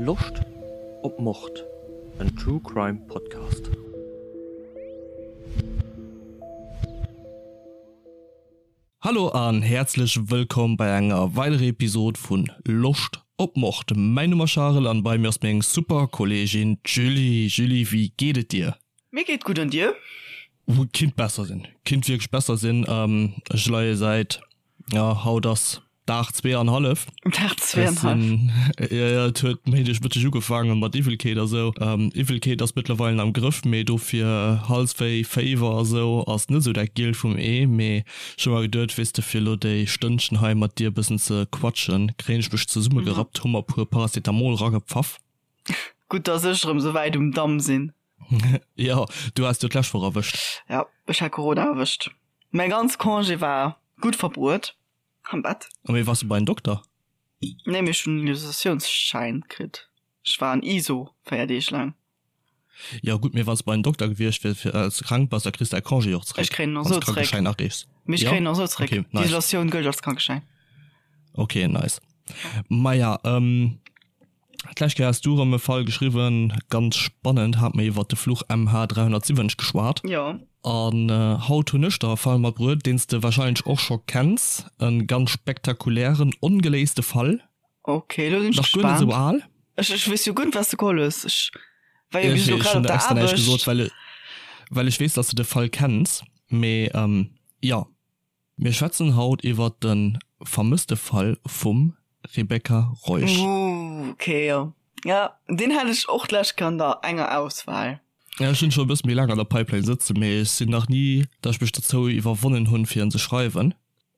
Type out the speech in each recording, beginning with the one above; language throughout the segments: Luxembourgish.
Loscht op Mord? En True Crime Podcast. Hallo an häerzlech wëllkomm bei enger weiderer Episode vun Loscht op Mord. Mäin Numm ass Charel an bei mir ass meng super Kolleegin d'Julie. Julie, wéi geet et dir? Mir geet gutt an dir? Kinnt besser sinn, kinnt wierklech besser sinn. Ech leie säit, ja haut ass Dag zweeanhallef. Dag zweeanhallef. Jo, jo, et huet Méindeg Mëtteg ugefaangen mat Iwwelkeet a sou. Iwwelkeet ass mëttlerweilen am Grëff, mee dofir Halswéi, Féiwer a sou ass net sou dat Gielt vum Ee. Mee ech hu mer geduet, weess de, fir elo déi Stënnchen hei mat dir e bëssen ze quatschen, kréien ech mech zesummegerappt, hu mer e puer Paracetamol ragepfaff. Gutt, dass ech erëm sou wäit um Damm sinn. Jo, du has jo d'lescht Woch erwëscht. Jo, ech hat Corona erwëscht. Mäi ganz Congé war gutt verbruet. Am Bett. A mee wars du bei den Dokter? Nee, mee ech hunn en Isolatiounsschäin kritt. Ech war an Iso 4 Deeg laang. Jo gutt, mee wann s de bei den Dokter gewiescht wiers fir well s de krank bass, da kriss de däi Congé och zeréck. Ech kréien en och sou zeréck. Wann s de Krankeschäin areechs. Mee ech kréien en och sou zeréck. Okay, nice. D'Isolatioun gëllt als Krankeschäin. Okay, nice. Maja, D'lescht Kéier has du erëm e Fall geschriwwen, ganz spannend, hat mer iwwert de Fluch MH 370 geschwat. Jo. An haut hunn ech der e Fall matbruet, deen s de wahrscheinlech och scho kenns, e ganz spektakulären, ongeléiste Fall. Ok, elo sinn ech Nach guer net gespaant. esou al. Ech, ech weess jo guer net, wat s de geholl hues. Ech war jo bis elo Ech grad hunn op der der extra näischt gesot, Aarbecht. well, well ech weess, dass de de Fall kenns, mee jo. Mir schwätzen haut iwwert de vermësste Fall vum Rebecca Reusch. Ooh, ok, jo. Jo, deen hat ech och d'lescht Kéier an der enger Auswahl. Ja, ech hunn scho e bësse méi laang an der Pipeline sëtzen, mee ech sinn nach ni, datt ech mech dozou iwwerwonnen hunn, fir en ze schreiwen.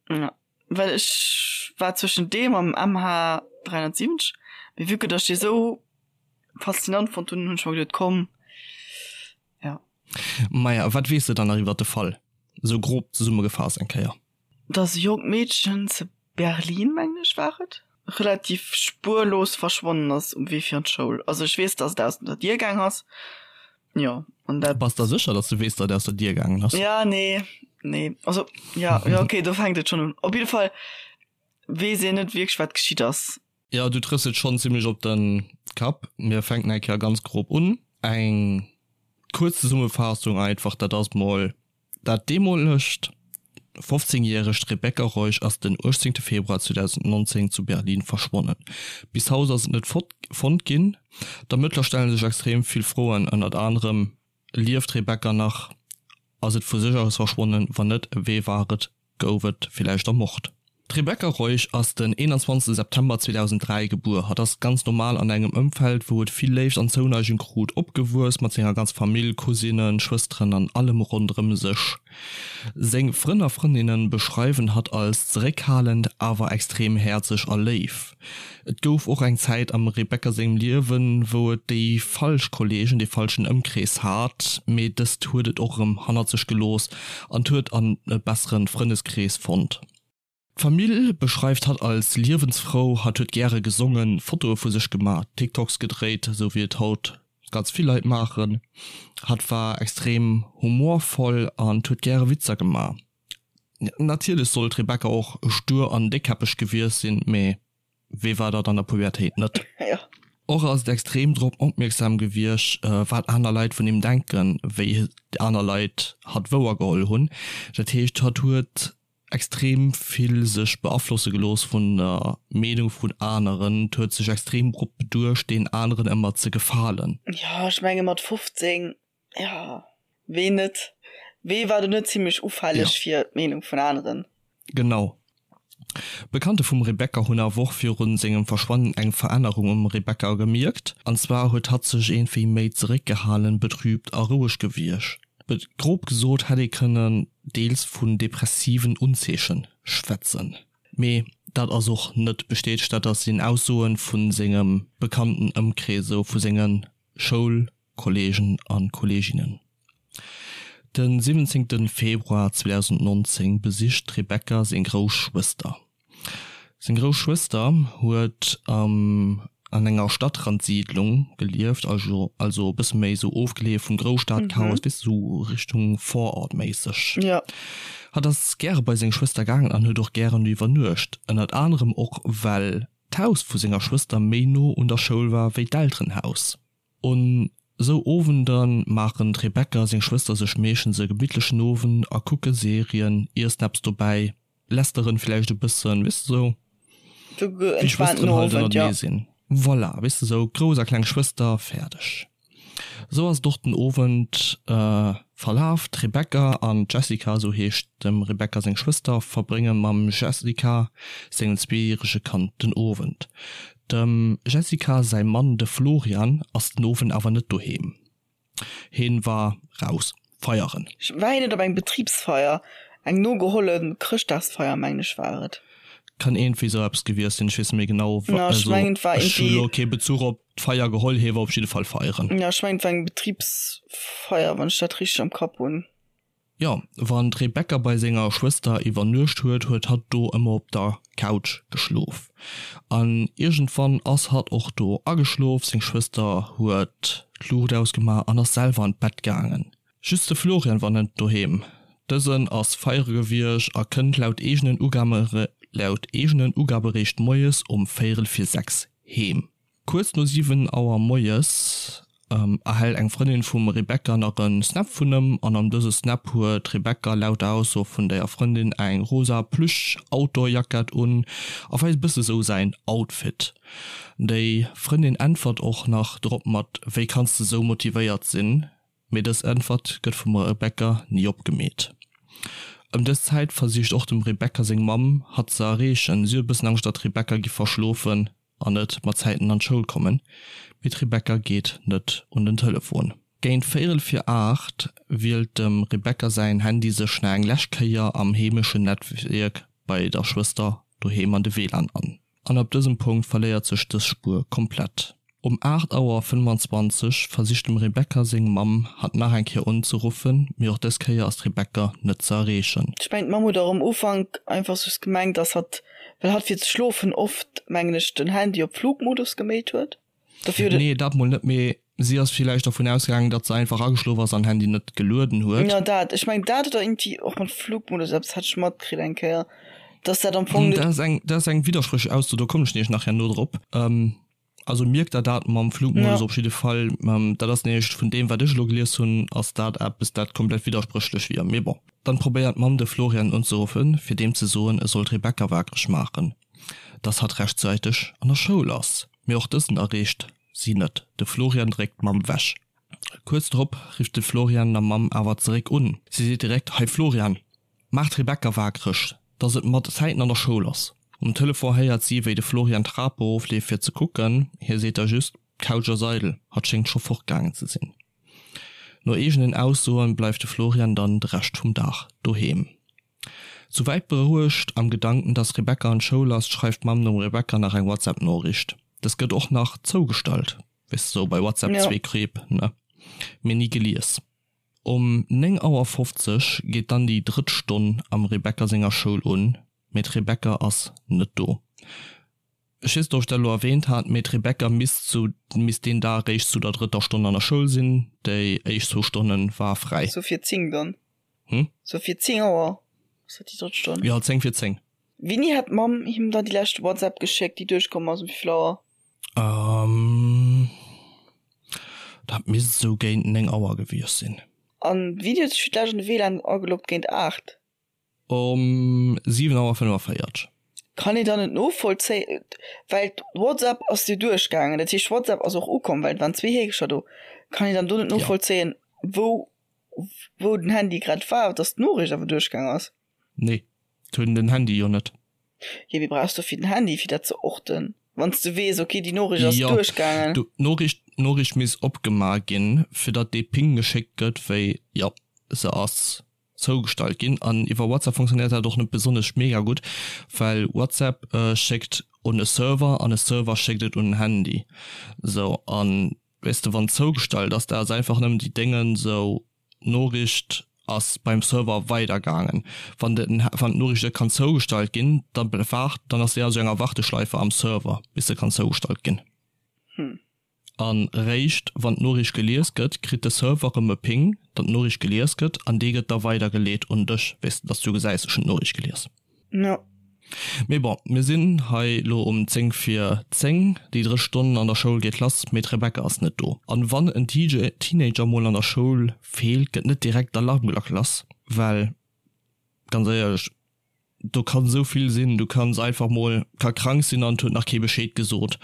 Ja, well ech war zwëschen deem am MH 370, mee vue que datt ech dee sou faszinant fonnt hunn, hunn ech mer geduet, komm, Ja. Maja, wat weess de dann nach iwwert de Fall? Esou grob zesummegefaasst eng Kéier. Dass e jonkt Meedchen ze Berlin, mengen ech war et, relativ spuerlos verschwonnen ass um Wee fir an d'Schoul. Also ech weess, dass et aus der Dier gaang ass, jo, an dat. Bass der sécher, dass du weess, datt et aus der Dier gaangen ass? Ja, nee, nee, also ja, jo, okay, do fänkt et schonn un. Op jidde Fall weess een net wierklech, wat geschitt ass. Jo, du trëffs et schonn zimlech op de Kapp. Mir fänken eng Kéier ganz grob un. Eng kuerz Zesummefaassung einfach, dat ass mol dat deemolegt 15 järegt Rebecca Reusch ass den 18 Februar 2019 zu Berlin verschwonnen. Bis haut ass et net fonnt ginn. D'Ermëttler stelle sech extrem vill Froen, ënnert anerem, Lieft d'Rebecca nach? Ass et vu sech aus verschwonnen? Wann net, wee war et? Gouf et villäicht ermort? D'Rebecca Reusch ass den 21 September 2003 gebuer. Hatt ass ganz normal an engem Ëmfeld, wou et vill Léift an Zouneigung krut, opgewuess, mat senger ganzer Famill, Cousinen, Schwësteren an allem ronderëm sech. Seng Frënn a Frëndinnen beschreiwen hatt als zeréckhalend, awer extrem häerzeg a léif. Et gouf och eng Zäit am Rebecca sengem Liewen, wou et déi falsch Kolleegen, dee falschen Ëmkrees hat, mee dëst huet et och erëm hannert sech gelooss an huet an e bessere Frëndeskrees fonnt. D'Famill beschreift hatt als liewensfrou, hatt huet gäre gesongen, Fotoe vu sech gemaach, TikToks gedréit, esou wéi et haut ganz vill Leit maachen. Hatt war extrem humorvoll an huet gäre Witzer gemaach. Natierlech soll d'Rebecca och stur an déckkäppeg gewiescht sinn, mee wee war dat an der Pubertéit net? Och ass et extrem drop opmierksam gewiescht, wat aner Leit vun him denken, wéi aner Leit hatt wouer geholl hunn. Dat heescht, hatt huet extrem vill sech beaflosse gelooss vun der Meenung vun aneren, huet sech extrem drop beduecht, deenen aneren ëmmer ze gefalen. Jo, ech menge mat 15 Jo, ween net? Wee war do net zimlech ufälleg fir d'Meenung vun aneren? Genau. Bekannte vum Rebecca hunn awer och virun sengem Verschwannen eng Verännerung um Rebecca gemierkt. An zwar huet hatt sech iergendwéi méi zeréckgehalen, betrübt a roueg gewiergt. Grob gesot hätt ee kënnen deels vun depressiven Unzeechen schwätzen. Mee dat ass och net bestätegt, dat ass sinn Aussoen vu sengem bekannten Ëmkrees, esou vu senge Schoul Kollegen a Kolleginnen. De 17 Februar 2019 besicht d'Rebecca seng grouss Schwëster. Seng grouss Schwëster huet an enger Stadtrandsiidlung gelieft, also e bësse méi esou ofgeleeë vum Grousstadchaos, weess de, esou Richtung Vorort méisseg. Hatt ass gäre bei seng Schwëster gaangen an huet och gären do iwwernuecht, ënnert anerem och well. d'Haus vu senger Schwëster méi no un der Schoul war wéi d'Elterenhaus. Un sou Owender maachen d'Rebecca seng Schwëster sech meeschtens e gemittlechen Owend a kucke Serien, iessen eppes dobäi, lästeren villäicht e bëssen, weess de sou wéi Schwësteren halt ënnertenee sinn. Voilà, weess de sou grouss a kleng Schwëster, fäerdeg. Sou ass et och den Owend verlaf. D'Rebecca an d'Jessica, sou heescht dem Rebecca seng Schwëster, verbrénge mam Jessica sengem zweejärege Kand den Owend. Dem Jessica säi Mann, de Florian, ass den Owend awer net doheem. Heen war raus feieren. War hien net op eng Betribsfeier? Eng nogeholle Chrëschtdagsfeier, mengen ech war et. Kann iergendwéi sou eppes gewiescht sinn, ech weess net méi genau. Jo, ech mengen et war iergendwéi. Ech hu lo kee Bezuch op d'Feier geholl, hie war op jidde Fall feieren. Jo, ech mengen et war eng Betribsfeier, wann ech dat richteg am Kapp hunn. Jo, wann d'Rebecca bei senger Schwëster iwwernuecht huet, huet hatt do ëmmer op der Couch geschlof. An iergendwann ass hatt och do ageschlof, seng Schwëster huet d'Luucht ausgemaach an ass selwer an d'Bett gaangen. Just de Florian war net doheem. Dësen ass feiere gewiescht a kënnt laut eegenen laut eegenen Ugabe réischt moies um véierel vir 6 heem. Kuerz no 7 Auer moies erhält eng Frëndin vum Rebecca nach en Snap vun ëm an an dëse Snap huet d'Rebecca laut der Ausso vun der Frëndin eng rosa Plüsch-Outdoor-Jackett un a weist e bësse sou säin Outfit. Déi Frëndin äntwert och nach drop mat Wéi kanns de sou motivéiert sinn? Mee dës Äntwert gëtt vum Rebecca ni opgemeet. Ëm dës Zäit versicht och dem Rebecca seng Mamm hatt ze erreechen. Si huet e bëssen Angscht datt d'Rebecca giff verschlofen an net mat Zäiten an d'Schoul kommen, mee d'Rebecca geet net un den Telefon. Géint véierel vir 8 wielt dem Rebecca säin Handy sech nach eng lescht Kéier am heemeschen Netwierk bei der Schwëster doheem an de WLAN an. An ab dësem Punkt verléiert sech dës Spuer komplett. Um 8 Auer 25 versicht dem Rebecca seng Mamm, hatt nach eng Kéier unzeruffen, mee och dës Kéier ass d'Rebecca net ze erreechen. Ech mengen d'Mamm huet och am Ufank einfach just gemengt, dass hatt, well hatt fir ze schlofen oft, mengen ech, den Handy op Flugmodus geméit huet. Dofir huet et. Nee, dat mol net, mee si ass villäicht dervun ausgaangen, datt se einfach ageschlof ass an Handy net gelueden huet. Jo, dat, ech mengen dat oder iergendwéi och mat Flugmodus, eppes hat ech matkritt eng Kéier, dass dat am Fong net. Dat ass eng, dat ass eng widderspréchlech Ausso, do kommen ech nämlech nach herno drop. Also mierkt der dat mam Flugmodus op jidde Fall. Dat ass nämlech vun deem wat ech elo gelies hunn, ass dat eppes dat komplett widderspréchlech wier. Mee bon. Dann probéiert d'Mamm de Florian unzeruffen, fir deem ze soen, e soll d'Rebecca wakereg maachen, dass hatt rechtzäiteg an der Schoul ass. Mee och dësen erreecht si net. De Florian dréckt d'Mamm wech. Kuerz drop rifft de Florian der Mamm awer zeréck un. Si seet direkt, Hei Florian, maach d'Rebecca wakereg, dass et mat Zäiten an der Schoul ass. Um Telefon héiert si, wéi de Florian d'Trap erofleeft fir ze kucken. Hie seet da just, D'Couch ass eidel, hatt schéngt scho fortgaangen ze sinn. No eegenen Aussoen bleift de Florian dann de Rescht vum Dag doheem. Souwäit berouegt am Gedanken, dass Rebecca an d'Schoul ass, schreift d'Mamm dem Rebecca nach eng WhatsApp-Noriicht. Dës gëtt och nach zougestallt, weess de sou bei WhatsApp zwee Kreep, ne? Mee ni gelies. Um 9 Auer 50 geet dann déi drëtt Stonn am Rebecca senger Schoul un, mee d'Rebecca ass net do. Ech weess net ob ech dat elo erwähnt hat, mee d'Rebecca misst zu misst deen Dag eréischt zu der drëtter Stonn an der Schoul sinn, déi éischt zwou Stonne war fräi. Sou fir 10 dann? Hm? Sou fir 10 Auer ass dat déi drëtt Stonn? Jo, 10 fir 10. Wéini hat d'Mamm him dann déi lescht WhatsApp geschéckt, déi duerchkomm ass? Um wéivill Auer? Ähm, dat misst esou géint 9 Auer gewiescht sinn. An wéini huet sech fir d'lescht an de WLAN ageloggt? Géint 8? Um 7 Auer 45. Kann een dann net novollzéien, well d'WhatsApp ass jo duerchgaangen, dat heescht WhatsApp ass och ukomm, well et waren zwee Heekecher do. Kann een dann do net novollzéien, wou wou den Handy grad war, dass d'Noriicht awer duerchgaang ass? Nee, hunn den Handy jo net. Jo, mee brauchs dofir den Handy fir dat ze orten, wann s de weess, okay déi Noriicht ass duerchgaangen? Jo, d'Noriicht d'Noriicht misst opgemaach ginn, fir datt dee Ping geschéckt gëtt, wéi jo se ass zougestallt ginn. An iwwer WhatsApp funktionéiert dat och net besonnesch mega gutt, well WhatsApp schéckt un e Server an e Server schéckt et un en Handy. Sou, an weess de wann zougestallt ass, dat ass einfach nëmmen déi Déngen, sou d'Noriicht ass beim Server weidergaangen. Wann de wann d'Noriicht net kann zougestallt ginn, da waart dann ass déi a sou enger Warteschleife am Server bis se kann zougestallt ginn. Hm. An réischt wann d'Noriicht gelies gëtt, kritt de Server rëm e Ping, datt d'Noriicht gelies gëtt, an dee gëtt da weidergeleet un dech, weess de, datt s du gesäis, ech hunn d'Noriicht gelies. Jo. Mee bon, mir sinn hei lo um 10 vir 10, déi drëtt Stonn an der Schoul geet lass, mee d'Rebecca ass net do. An wann en Teenager mol an der Schoul feelt, gëtt net direkt d'Alarmglack lass, well ganz éierlech, do kann esou vill sinn, du kanns einfach mol, ka krank sinn an et huet nach kee Bescheed gesot,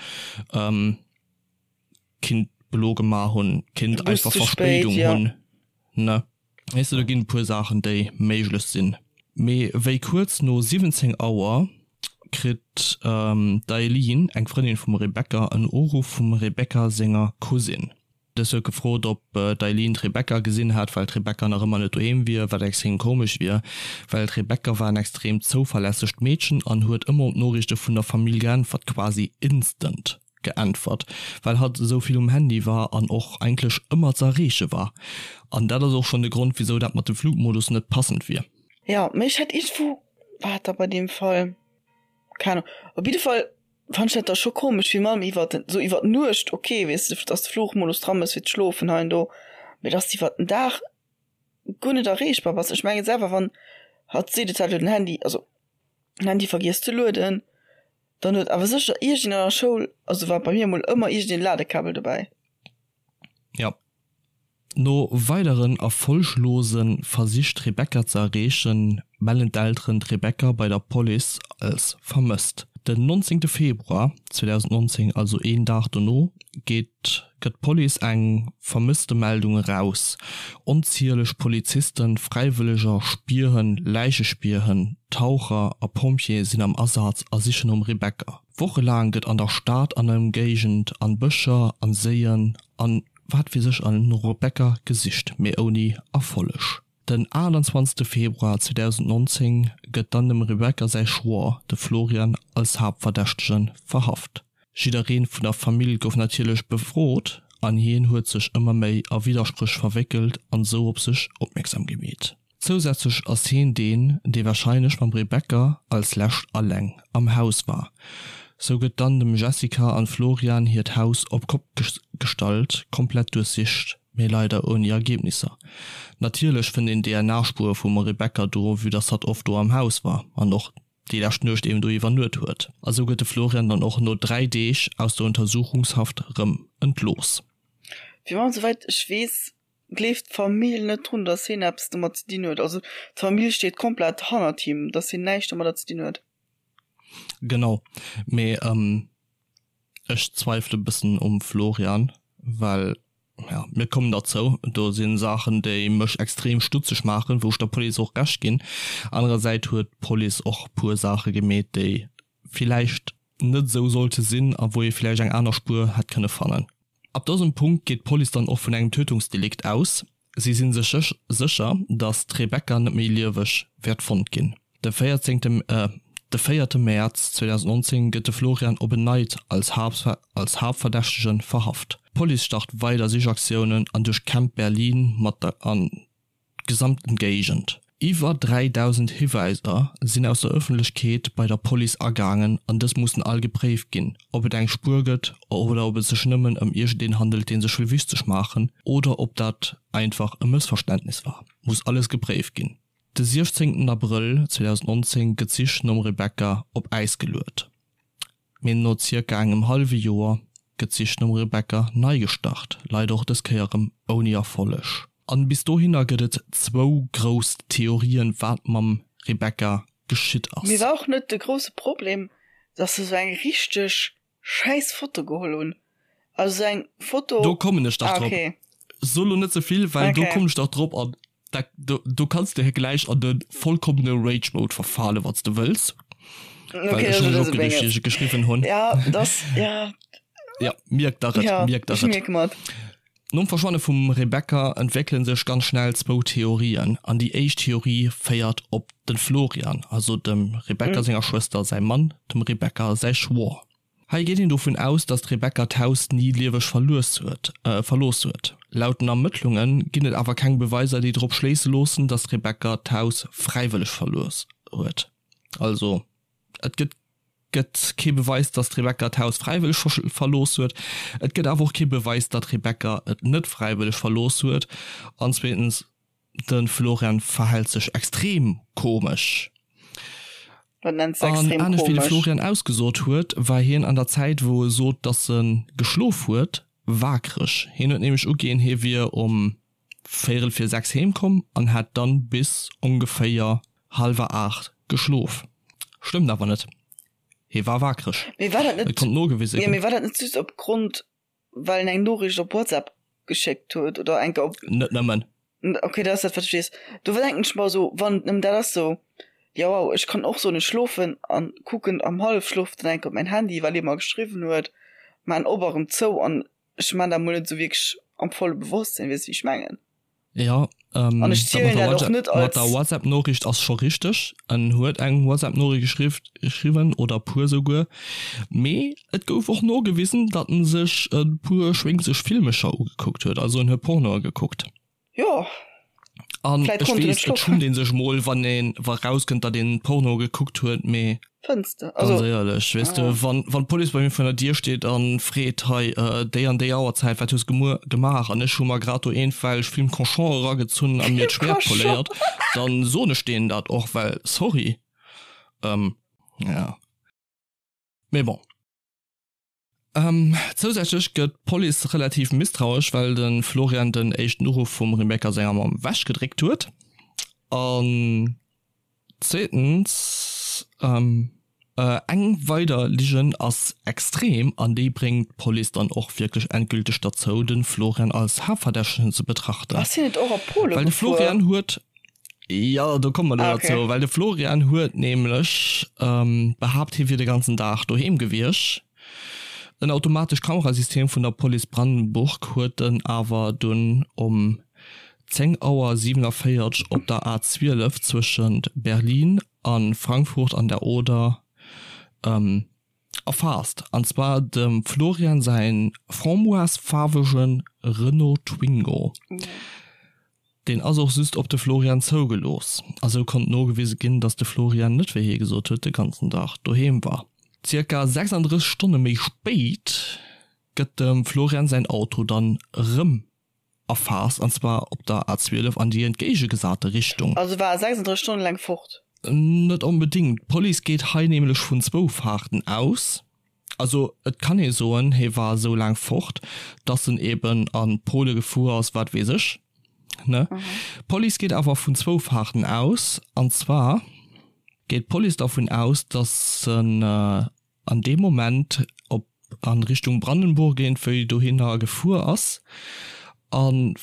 kinnt Blo gemaach hunn, kinnt einfach Verspéidung hunn, ne? Weess de, do ginn e puer Saachen, déi méiglech sinn. Mee wéi kuerz no 17 Auer kritt d'Eileen, eng Frëndin vum Rebecca, en Uruff vum Rebecca senger Cousine. Dës huet gefrot, ob d'Eileen d'Rebecca gesinn hat, well d'Rebecca nach ëmmer net doheem wier, wat extrem komesch wier, well d'Rebecca war en extrem zouverlässegt Meedchen an huet ëmmer op d'Noriichte vun der Famill geäntwert, quasi instant. Geäntwert, well hatt esou vill um Handy war an och eigentlech ëmmer ze erreeche war. An dat ass och schonn de Grond, wisou dat mat dem Flugmodus net passend wier. Jo, mee ech hat iergendwou, war dat da bei deem Fall, keng Ahnung, op jidde Fall fand ech dat da scho komesch, wéi mam iwwer den, sou iwwer d'Nuecht, ok, weess de, dass de Flugmodus dran ass fir ze schlofen hei an do, mee dass de iwwer den Dag guer net erreechbar bass. Ech mengen selwer, wann hatt seet, et hätt elo den Handy, also den Handy vergiess ze lueden, Dann huet awer sécher iergend an der Schoul, also war bei mir emol ëmmer iergend een Ladekabel dobäi. Jo. No weideren erfolglose Versich d'Rebecca ze erreechen, mellen d'Elteren d'Rebecca bei der Police als vermësst. Den 19 Februar 2019, also een Dag dono, geet gëtt d'Police eng Vermësstemeldung eraus. Onzieleg Polizisten, Fräiwëlleger, Spierhënn, Läichespierhënn, Taucher a Pompjeeë sinn am Asaz a sichen nom Rebecca. Wochelaang gëtt an der Stad an Ëmgéigend, an Bëscher, an Séien an wat weess ech all no Rebecca gesicht, mee ouni Erfolleg. Den 28 Februar 2019 gëtt dann dem Rebecca säi Schwoer, de Florian, als Haaptverdächtege verhaft. Jidderee vun der Famill gouf natierlech befrot an hien huet sech ëmmer méi a Widderspréch verwéckelt an sou op sech opmierksam gemeet. Zousätzlech ass hien deen, dee warscheinlech mam Rebecca als lescht alleng am Haus war. Sou gëtt dann dem Jessica an Florian hiert Haus op Kopp gestallt, komplett duerchsicht, mee leider ouni Ergebnisser. Natierlech fënnt een DNA-Spuere vum Rebecca do, vue dass hatt oft do am Haus war an och déi lescht Nuecht eben do iwwernuet huet. A sou gëtt de Florian dann och no 3 Deeg aus der Untersuchungshaft rëm entlooss. Fir mech, souwäit ech weess, gleeft d'Famill net drun, dass hien eppes domat ze dinn huet. Also d'Famill steet komplett hannert him, dass hien näischt domadder ze dinn huet. Genau, mee ech zweifele bëssen um Florian, well, ja, mir kommen derzou, do si Saachen, déi mech extrem stutzeg maachen, wou ech der Police och Recht ginn. Anerersäit huet d'Police och puer Saache gemeet, déi villäicht net esou sollte sinn a wou ee villäicht eng aner Spuer hätt kënne fannen. Ab dësem Punkt geet d'Police dann och vun engem Tötungsdelikt aus. Si si sech sécher, datt d'Rebecca net méi lieweg wäert fonnt ginn. De 14. De véierte Mäerz 2019 gëtt de Florian op en Neit als als Haaptverdächtege verhaft. D'Police start weider Sichaktiounen an duerchkämmt Berlin mat der an d'gesamten Géigend. Iwwer 3.000 Hiwäiser sinn aus der Ëffentlechkeet bei der Police agaangen an dës mussen all gepréift ginn, ob et eng Spuer gëtt oder ob et sech nëmmen ëm iergendeen handelt, dee sech wëll wichteg maachen oder ob dat einfach e Mëssverständnis war, muss alles gepréift ginn. De 16 Abrëll 2019 gëtt d'Sich nom Rebecca op Äis geluet. Mee no zirka engem hallwe Joer gëtt d'Sich nom Rebecca nei gestart, leider och dës Kéier erëm ouni Erfolleg. An bis dohinner gëtt et zwou grouss Theorien, wat mam Rebecca geschitt ass. Mee war och net de grousse Problem, dass se sou eng richteg schäiss Foto geholl hunn? Also sou eng Foto. Do kommen ech dach drop. So lo net ze vill, well do kommen ech dach drop an Da, do, do kanns de gläich an de vollkommene Rage Mode verfale wann s de wëlls. Okay, Well ech hunn mech opgereegt, wéi ech et geschriwwen hunn. Ja, das, ja. Ja, mierk der et, ja, mierk der et. Mierk mat. Nom Verschwanne vum Rebecca entwéckele sech ganz schnell zwou Theorien. An déi éischt Theorie féiert op de Florian, also dem Rebecca mm. senger Schwëster säi Mann, dem Rebecca säi Schwoer. Hei geet een dovun aus, datt d'Rebecca d'Haus ni lieweg verlues huet, verlooss huet. Laut den Ermëttlunge ginn et awer keng Beweiser, déi drop schléisse loossen, datt d'Rebecca d'Haus fräiwëlleg verlooss huet. Also et gëtt gëtt kee Beweis, datt d'Rebecca d'Haus fräiwëlleg verlooss huet. Et gëtt awer och kee Beweis, datt d'Rebecca et net fräiwëlleg verlooss huet. An zweetens, de Florian verhält sech extrem komesch. Wat nenns de An extrem anescht wéi de komesch? Florian ausgesot huet, war hien an der Zäit wou e sot, dass e geschlof huet, waakreg. Hien huet nämlech uginn, hie wier um véierel vir 6 heem komm an hätt dann bis ongeféier hallwer 8 geschlof. Stëmmt awer net, hie war waakreg. Mee war dat Et net, konnt nogewise jo, ginn. mee war dat net just opgrond well en eng Noriicht op WhatsApp geschéckt huet oder enke op. Net nëmmen. Ok, dat ass dat wat ech weess. Do denken ech mer esou, wann et nëmmen dat ass, sou, jo wow, ech kann och soen ech schlofen an kucken am Hallefschlof dann enke op mäin Handy wat ee mer geschriwwen huet, maan op a rëm zou an ech maan dat mol net esou wierklech am volle Bewosstsinn, weess wéi ech mengen? Jo, An ech dat mat zielen der dat och WhatsApp, net mat der als. WhatsApp-Noriicht ass scho richteg. En huet eng WhatsApp-Noriicht geschriww, geschriwwen oder e puer souguer, mee et gouf och nogewisen, datt en sech e puer schwéngzeg Filmecher ugekuckt huet, also en huet Pornoe gekuckt. Jo, An vläit ech konnt en net weess, et schlofen. schummt ee sech mol, wann een, wa rauskënnt, datt een Porno gekuckt huet, mee. Fënns de? Ganz Also, éierlech, weess de, ah. wann, wann d'Police bei mir vun der Dier steet a freet, hei, déi an déi Auerzäit, wat hues gemuer gemaach? An ech hu mer grad do eenfälleg Film Cochon eragezunn a mir Film d'Schwäert Cochon! poléiert, dann soen ech deenen dat och, well sorry, ähm, ja. Mee bon. Zousätzlech gëtt d'Police relativ misstrauesch, well de Florian den éischten Uruff vum Rebecca senger Mamm ewechgedréckt huet. An zweetens, eng weider Ligen ass extrem an déi bréngt d'Police dann och wierklech endgülteg derzou, de Florian als Haaptverdächtegen ze betrachten. Ass hien net och a Pole Well de gefuer? Florian huet Jo, do komme mer elo Ah, okay. derzou, well de Florian huet nämlech behaapt, hie wier de ganzen Dag doheem gewiescht. En automatescht Kamerasystem vun der Police Brandenburg huet en awer dunn um 10 Auer 47 op der A 12 zwëschent Berlin a Frankfurt an der Oder erfaasst, an zwar dem Florian säin framboise-faarwege Renault Twingo. Deen ass och just op de Florian zougelooss, a sou konnt nogewise ginn, dass de Florian net, wéi hie gesot huet, de ganzen Dag doheem war. Zirka 36 Stonne méi spéit gëtt dem Florian säin Auto dann erëm erfaasst, an zwar op der A12 an déi entgéigegesate Richtung. Also war e 36 Stonne laang fort? Net onbedéngt. D'Police geet hei nämlech vun zwou Faarten aus. Also et kann ee soen, hie war esou laang fort, dass en eben a Pole gefuer ass, wat weess ech, ne? D'Police geet awer vun zwou Faarten aus. An zwar geet d'Police dervun aus, dass en an deem Moment op an Richtung Brandenburg iergendwéi dohinner gefuer ass an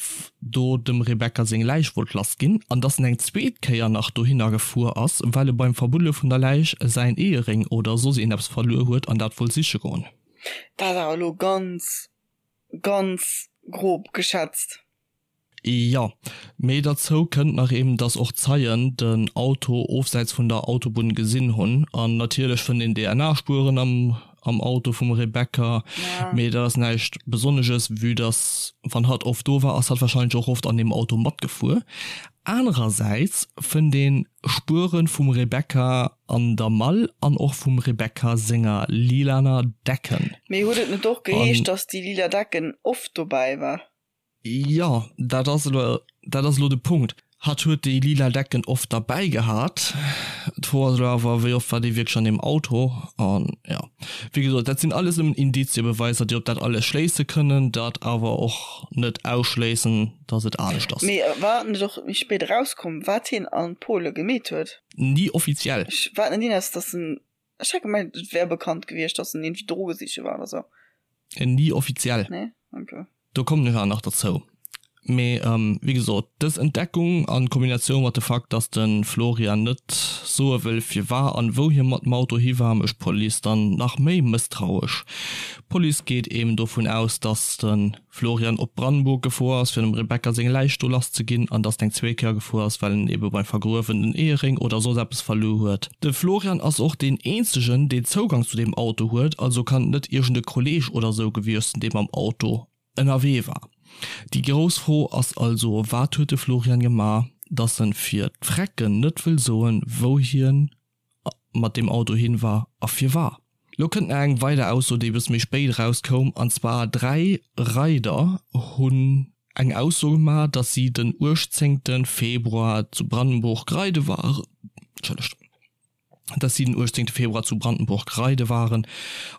do dem Rebecca seng Läich wollt lass ginn an dass en eng zweet Kéier nach dohinner gefuer ass, well e beim Verbuddele vun der Läich säin Eheréng oder soss iergendeppes verluer huet an dat wollt siche goen. Dat ass awer elo ganz, ganz grob geschätzt. Jo, mee derzou kënnt nach eben, dass och Zeien den Auto ofsäits vun der Autobunn gesinn hunn. An natierlech fënnt een DNA-Spueren am am Auto vum Rebecca, mee dat ass näischt Besonnesches, vue dass wann hatt oft do war, ass hatt warscheinlech och oft an deem Auto matgefuer. Anerersäits fënnt een Spuere vum Rebecca an der Mall an och vum Rebecca senger lilaner Decken. Mee huet et net och geheescht, dass déi lila Decken oft dobäi war? Jo, dat ass elo, dat ass elo de Punkt. Hatt huet déi lila Decken oft derbäi gehat. D'Fro ass elo awer, wéi oft war déi wierklech an deem Auto? An jo, wéi gesot, dat sinn alles nëmmen Indiziebeweisser, déi op dat alles schléisse kënnen, dat awer och net ausschléissen, datt et anescht ass. Mee war et net och méi spéit erauskomm, wat hien a Pole gemeet huet? Ni offiziell. Ech war net iwwers, datt en Ech hat gemengt et wär bekannt gewiescht, dass en iergendwéi Droge siche war oder sou. Ni offiziell. Nee? Okay. Do kommen ech awer nach derzou. Mee wéi gesot, dës Entdeckung a Kombinatioun mat de Fakt, dass de Florian net soe wëll firwar an wou hie mat dem Auto hi war, mécht d'Police dann nach méi mësstrauesch. D'Police geet eben dovun aus, dass de Florian op Brandenburg gefuer ass, fir dem Rebecca seng Läich do lass ze ginn, an dass en eng zweet Kéier gefuer ass, well en ebe beim Vergruewen den Eheréng oder soss eppes verluer huet. De Florian ass och deen eenzegen, deen Zougang zu deem Auto huet, also kann et net iergend e Kolleeg oder sou gewiescht sinn, dee mam Auto ënnerwee war. Déi grouss Fro ass also, Wat huet de Florian gemaach, dass en fir d'Frecken net wëll soen, wou hien mat deem Auto hin war a firwar. Lo kënnt nach eng weider Ausso déi bësse méi spéit eraus koum an zwar 3 Reider hunn eng Ausso gemaach dass si den 18 Februar zu Brandenburg reide waren, Entschëllegt. Dass si den 18 Februar zu Brandenburg reide waren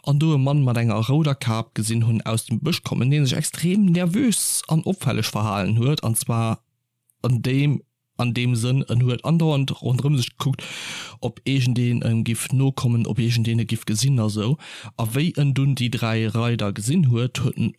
an do e Mann mat enger rouder Kap gesinn hunn aus dem Bësch kommen, dee sech extrem nervös an opfälleg verhalen huet, an zwar an deem an deem Sënn, en huet andauernd ronderëm sech gekuckt, ob iergendeen em giff nokommen, ob iergendeen e giff gesinn a sou. A wéi en dunn déi 3 Reider gesinn huet, huet en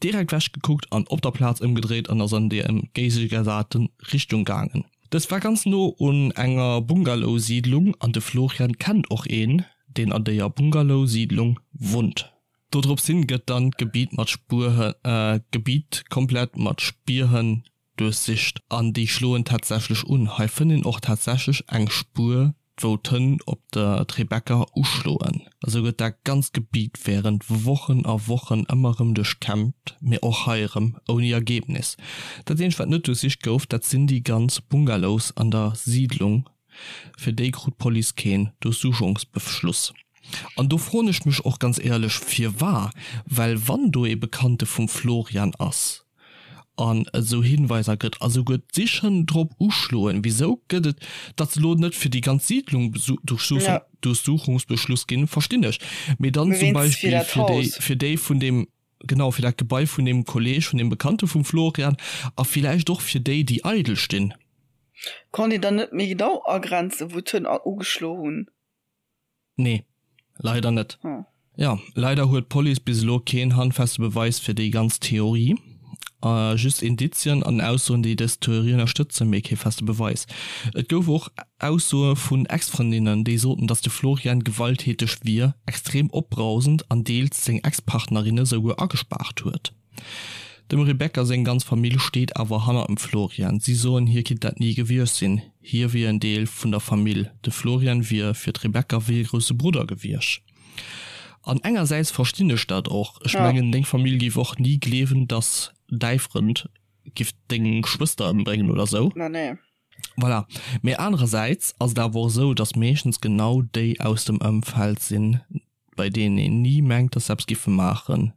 direkt wech gekuckt an op der Plaz ëmgedréit an ass an déi entgéigegesate Richtung gaangen. Dës war ganz no un enger Bungalow-Siidlung an de Florian kennt och een, deen an déier Bungalow-Siidlung wunnt. Dodrops hin gëtt dann d'Gebiet mat Spuer d'Gebiet komplett mat Spierhënn duerchsicht an déi schloen tatsächlech un. Hei fënnt een och tatsächlech eng Spuer wou d'Hënn op der Rebecca uschloen. Esou gëtt dat ganzt Gebiet wärend Wochen a Wochen ëmmer erëm duerchkämmt, mee och hei erëm ouni Ergebnis. Dat eenzegt wat net duerchsicht gouf, dat sinn déi ganz Bungalows an der Siidlung, fir déi krut d'Police keen Durchsuchungsbeschluss. An do froen ech mech och ganz éierlech firwar, well wann do ee Bekannte vum Florian ass, an et esou Hinweiser gëtt a souguer d'Sichhënn drop uschloen, wisou gëtt et, datt se elo net fir déi ganz Siidlung Durchsuchungsbeschluss ginn, verstinn ech, mee dann zum Beispill fir déi, fir déi vun deem, genau, fir dat Gebai vun deem Kolleg, vun deem Bekannte vum Florian a villäicht och fir déi, déi eidel stinn. Konnt een dann net méi genau agrenzen, wou d'Hënn ugeschlo hunn? Nee, leider net. Jo, leider huet d'Police bis elo keen handfeste Beweis fir déi ganz Theorie. Just Indizien an Aussoen, déi dës Theorie ënnerstëtzen, mee kee feste Beweis. Et gouf och Aussoe vun Ex-Frëndinnen, déi soten, datt de Florian gewalttäteg wier, extrem opbrausend an deels seng Ex-Partnerinne souguer agespaart huet. Dem Rebecca seng ganz Famill steet awer hannert dem Florian. Si soen, hie kinnt dat ni gewiescht sinn, hie wier en Deel vun der Famill. De Florian wier fir d'Rebecca wéi e grousse Brudder gewiescht. An engersäits verstinn ech dat och. Ech mengen, deng Famill géif och ni gleewen, dass däi Frënd giff deng Schwëster ëmbréngen oder sou. Voilà. Mee anerersäits ass et awer och esou, dass meeschtens genau déi aus dem Ëmfeld sinn, bei deenen een ni mengt, dass se eppes giffe maachen.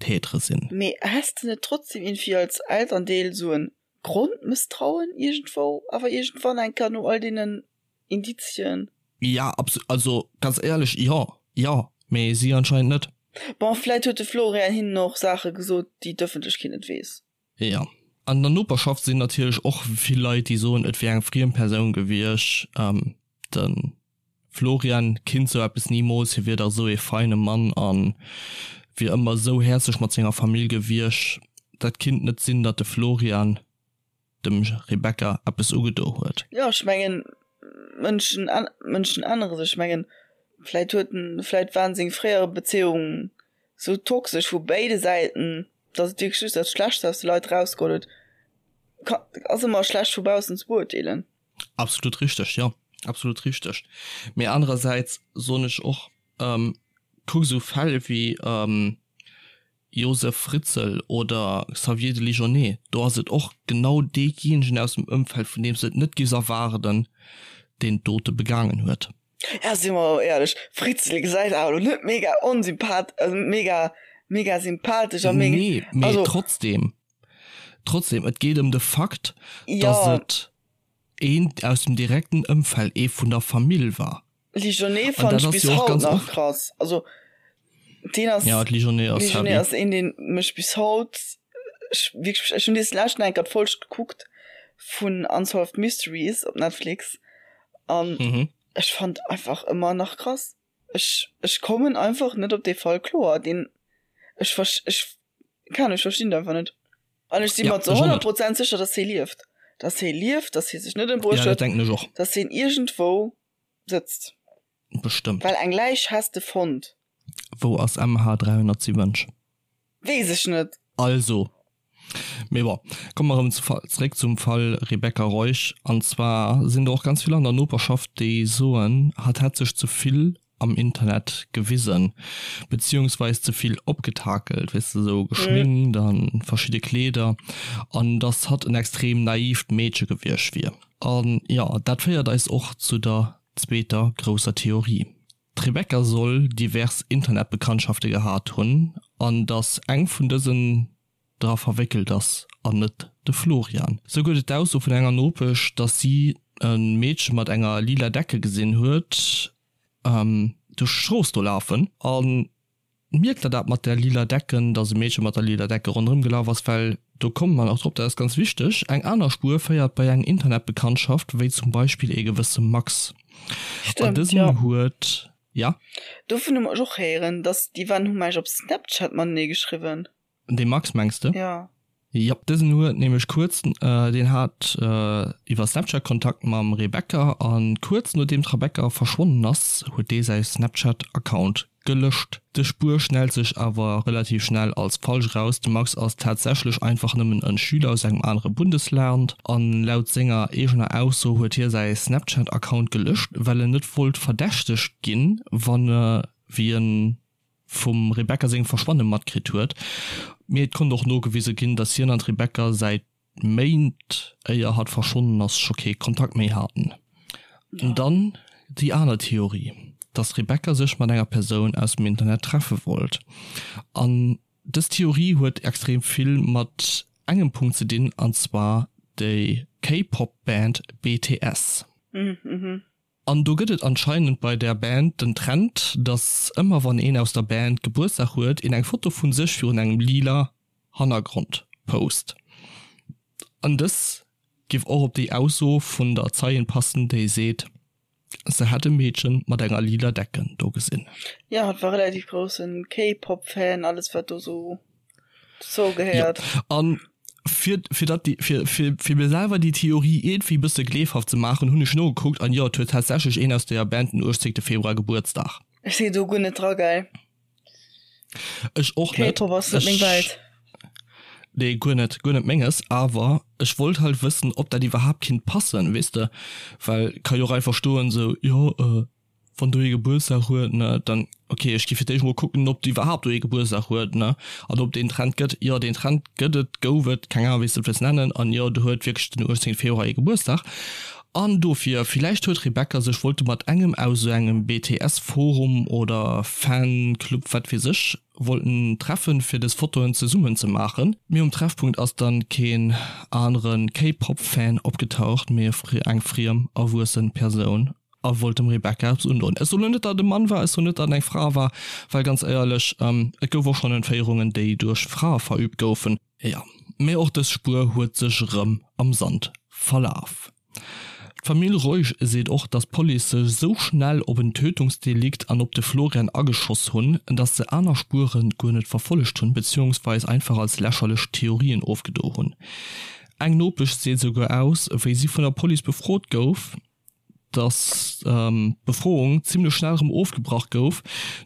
Tätere sinn. Mee häss de net trotzdem iergendwéi als Elterndeel sou en Grondmësstrauen iergendwou awer iergendwann eng Kéier no all deenen Indizien? Ja, also ganz éierlech, jo, jo, mee si anscheinend net. Bon, vläit huet de Florian hinnen och Saache gesot, déi d'Ëffentlechkeet net weess. Jo. An der Noperschaft sinn natierlech och vill Leit, déi soen, et wier eng friem Persoun gewiescht. De Florian kinnt sou eppes nimools, hie wier dach sou ee feine Mann a wier ëmmer sou häerzlech mat senger Famill gewiescht. Dat kinnt net sinn, datt de Florian dem Rebecca eppes ugedo huet. Jo, ech mengen, Mënschen, Mënschen ännere sech. Ech mengen, vläit huet en, vläit waren seng fréiere Bezéiungen sou toxesch vu béide Säiten, datt et wierklech just dat Schlechtst aus de Leit erausgeholl huet. Ka, ass ëmmer schlecht vu baussen ze beurteelen. Absolut richteg, jo, absolut richteg. Mee anerersäits soen ech och, kuck esou Fäll wéi Josef Fritzl oder Xavier de Ligonnet, do ass et och genau deejéinegen aus dem Ëmfeld, vun deem s de et net giffs erwaarden, deen d'Dote begaangen huet. Ja, si mer och éierlech, Fritzl gesäit awer elo net mega onsympath-, also mega, mega sympathesch a mega. Nee, mee trotzdem. Trotzdem, et geet ëm de Fakt, dass et een aus dem direkten Ëmfeld, ee vun der Famill war. Ligionnet fannen ech bis haut nach krass. Also deen ass, ja, Ligionnet ass, Ligionnet ass een, deen mech bis haut, ech wierklech, ech hunn dees leschten eng Kéier d'Folg gekuckt vun Unsolved Mysteries op Netflix an ech fand einfach ëmmer nach krass. Ech, ech kommen einfach net op dee Fall kloer, deen, ech, ech Keine Ahnung, ech verstinn et einfach net. An ech si mer zu 100 Prozent sécher, dass hie lieft. Dass hie lieft, dass hie sech net ëmbruecht huet. Ja, dat denken ech och. Dass hien iergendwou sëtzt. Bestëmmt. Well eng Läich häss de fonnt. Wou ass MH 370? Weess ech net. Also. Mee bon, komme mer erëm zeréck zum Fall Rebecca Reusch. An zwar sinn der och ganz vill an der Noperschaft, déi soen, hatt hätt sech ze vill am Internet gewisen, beziehungsweis ze vill opgetakelt, weess de, sou geschminkt an verschidde Kleeder, an dass hatt en extrem naivt Meedche gewiescht wier. An jo, dat féiert eis och zu der zweeter grousser Theorie. D'Rebecca soll divers Internetbekanntschafte gehat hunn, an dass eng vun dësen dra verwéckelt ass an net de Florian. Sou gëtt et d'Ausso vun enger Nopesch, dass si e Meedche mat enger lila Decke gesinn huet. Duerch d'Strooss do lafen an mierkt der dat mat der lila Decken, dass e Meedche mat der lila Decke ronderëm gelaf ass, well do komme mer nach drop, dat ass ganz wichteg, eng aner Spuer féiert bei eng Internetbekanntschaft, wéi zum Beispill ee gewësse Max. An Stëmmt, dësen jo. huet, ja? Dovun hu mer ech och héieren, dass déi waren, hu mer eis op Snapchat matenee geschriwwen. Dee Max mengs de? Jo. Jop, dësen huet nämlech kuerz, deen hat iwwer Snapchat Kontakt mam Rebecca an kuerz nodeem d'Rebecca verschwonnen ass, huet dee säi Snapchat Account gelëscht. Dës Spuer schnellt sech awer relativ schnell als falsch eraus, de Max ass tatsächlech einfach nëmmen en Schüler aus engem anere Bundesland an laut senger eegener Ausso huet hie säi Snapchat Account gelëscht, well en net wollt verdächtegt ginn, wann e wéi en vum Rebecca sengem Verschwanne matkritt huet, mee et konnt och nogewise ginn, datt hien an d'Rebecca säit Méint, éier hatt verschwonnen ass, scho kee Kontakt méi haten. Dann déi aner Theorie, datt d'Rebecca sech mat enger Persoun aus dem Internet treffe wollt. An dës Theorie huet extrem vill mat engem Punkt ze dinn, an zwar déi K-Pop-Band BTS. An do gëtt et anscheinend bei där Band den Trend, dass ëmmer wann een aus der Band Gebuertsdag huet, een eng Foto vun sech virun engem lila Hannergrond post. An dës giff och op déi Ausso vun der Zeien passen, déi seet, se hätt e Meedchen mat enger lila Decken do gesinn. Jo, hatt war relativ groussen K-Pop Fan, alles wat do sou dozou gehéiert. Jo, an fir, fir dat déi, fir, fir, fir mir selwer déi Theorie iergendwéi e bësse gleefhaft ze maachen, hunn ech nogekuckt an jo, et huet tatsächlech een aus deeër Band den 18. Februar Gebuertsdag. Ech sinn do guer net dra, gell. Ech och net. K-Pop ass net meng Welt. Nee, guer net, guer net menges, awer ech wollt halt wëssen, ob dat iwwerhaapt kinnt passen, weess de, well ka jo och einfach stoen esou, jo, Wann do ee Gebuertsdag huet, ne, dann, ok, ech gi fir d'éischt mol kucken, ob iwwerhaapt do ee Gebuertsdag huet, ne, an ob deen Trend gëtt. Jo, deen Trend gëtt et, gouf et, keng Ahnung, wéi s de et wëlls nennen, an jo, do huet wierklech den 18 Februar ee Gebuertsdag. An dofir, villäicht huet Rebecca sech wollte mat engem aus esou engem BTS-Forum oder Fanclub, wat weess ech, wollten treffen, fir des Fotoen zesummen ze maachen. Mee um Treffpunkt ass dann keen anere K-Pop-Fan opgetaucht, mee eng friem, erwuessen Persoun. A wollt dem Rebecca eppes undoen. Ech soen net, datt et e Mann war, ech soen net, datt et eng Fra war, well ganz éierlech, et gouf och schonn Entféierungen, déi duerch Frae verüübt goufen. Jo, mee och dës Spuer huet sech erëm am Sand verlaf. D'Famill Reusch seet och, datt d'Police sech esou schnell op en Tötungsdelikt an op de Florian ageschoss hunn, datt se aner Spuere guer net verfollegt hunn, beziehungsweis einfach als lächerlech Theorien ofgedo hunn. Eng Nopesch seet esouguer aus, wéi si vun der Police befrot gouf, dass d'Befroung zimmlech schnell erëm ofgebrach gouf,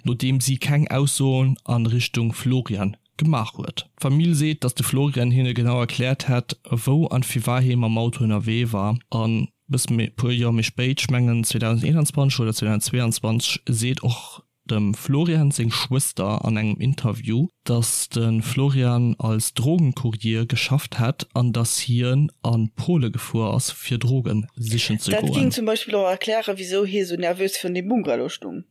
nodeem si keng Aussoen a Richtung Florian gemaach huet. D'Famill seet, dass de Florian hinne genau erkläert hätt, wou an firwat hie mam Auto ënnerwee war. An bësse méi, puer Joer méi spéit, ech mengen 2021 oder 2022, seet och Dem Florian seng Schwëster an engem Interview, dass de Florian als Drogenkurier geschafft hätt an dass hien a Pole gefuer ass fir Droge sichen ze Dat goen. ging zum Beispill och erklären, wisou hie sou nervös virun deem Bungalow stung.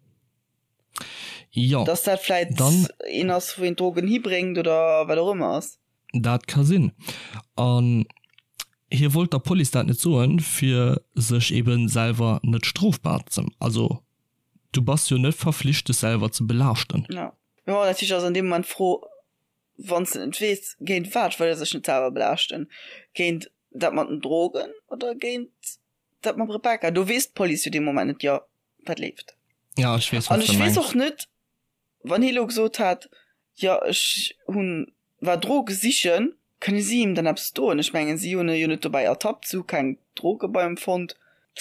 Jo, Dass dat vläit dann. een ass, wou een d'Drogen hibréngt oder wat och ëmmer ass. Dat ka sinn. An hie wollt der Police dat net soen, fir sech eben selwer net strofbar ze, also Du bass jo net verflicht dech selwer ze belaaschten. Jo, mee bon, natierlech ass an deem Moment d'Fro, wann s de net weess, géint wat wëll e sech net selwer belaaschten? Géint dat mat den Drogen oder géint dat mam Rebecca? Do weess d'Police jo dee Moment net, jo, wat leeft. Ja, ech weess, wat s de mengs. An ech weess och net, wann hie lo gesot hätt, jo, ech hunn, war Droge sichen, kënne si him dann eppes doen? Ech mengen, si hunn e jo net dobäi ertappt, si hu keng Droge bei him fonnt.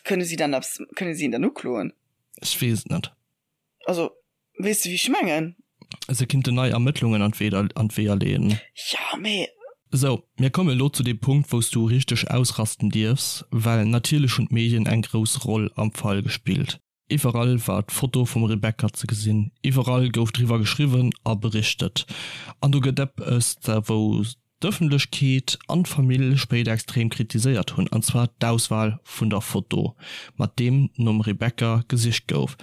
Kënne si dann eppes, kënne si en dann ukloen? Ech weess et net. Also, weess de wéi ech mengen? Se kinnten nei Ermëttlungen an d'Weeër leeën. Jo, mee. Sou, mir kommen elo zu deem Punkt, wou s du richteg ausrasten dierfs, well natierlech hunn d'Medien eng grouss Roll am Fall gespillt. Iwwerall war d'Foto vum Rebecca ze gesinn, iwwerall gouf driwwer geschriwwen a berichtet. An do gëtt eppes, wou d'Ëffentlechkeet an d'Famill spéider extrem kritiséiert hunn, an zwar d'Auswal vun der Foto, mat deem nom Rebecca gesicht gouf.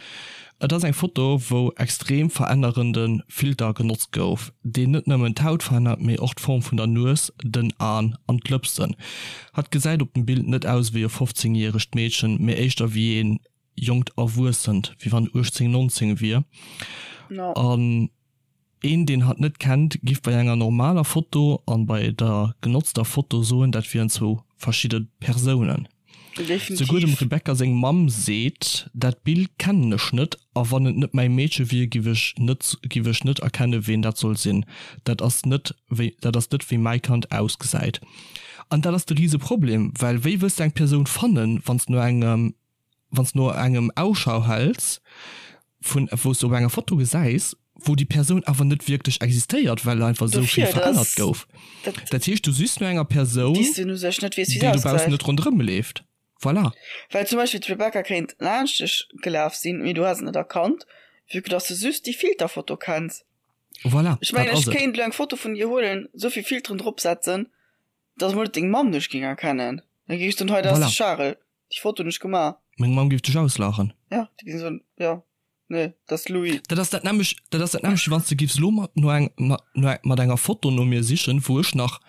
Et ass eng Foto, wou extrem verännerende Filter genotzt gouf, deen net nëmmen d'Haut verännert, mee och d'Form vun der Nues, den Aen an d'Lëpsen. Hatt gesäit op dem Bild net aus wéi e 15 järegt Meedchen, mee éischter wéi een. jonkt Erwuessent, wéi wann 18, 19 wier. An een, deen hatt net kennt, giff bei enger normaler Foto an bei der genotzter Foto soen, dat wieren zwou verschidde Persounen. Souguer dem Rebecca seng Mamm seet, dat Bild kennen ech net a wann et net mäi Meedche wier, giff ech net giff ech net erkennen, ween dat soll sinn. Dat ass net wéi dat ass net wéi mäi Kand ausgesäit. An dat ass de rise Problem, well wéi wëlls de eng Persoun fannen, wann s no engem wann s no engem Ausschau häls vun wou s de op enger Foto gesäis, wou déi Persoun awer net wierklech existéiert, well einfach esou vill verännert gouf. Dat heescht, du sichs no enger Persoun, déi dobaussen net ronderëm leeft. Voilà. Well zum Beispill d'Rebecca kéint laanscht dech gelaf sinn, mee du häss et net erkannt, vue que dass de just déi Filterfoto kenns. Voilà, Ech mengen, ech kéint elo eng Foto vun dir huelen, esou vill Filteren dropsetzen, dass emol net deng Mamm dech géing erkennen. Da géing ech soen, hei, dat ass de Charel. Déi Foto hunn ech gemaach. Meng Mamm géif dech auslaachen. Ja, déi géing soen, jo, nee, dat ass Louis. Dat ass dat nämmlecht, dat ass dat nämmlecht, wéi wann s de géifs elo mat no eng, mat no eng, mat enger Foto no mir sichen, wou ech nach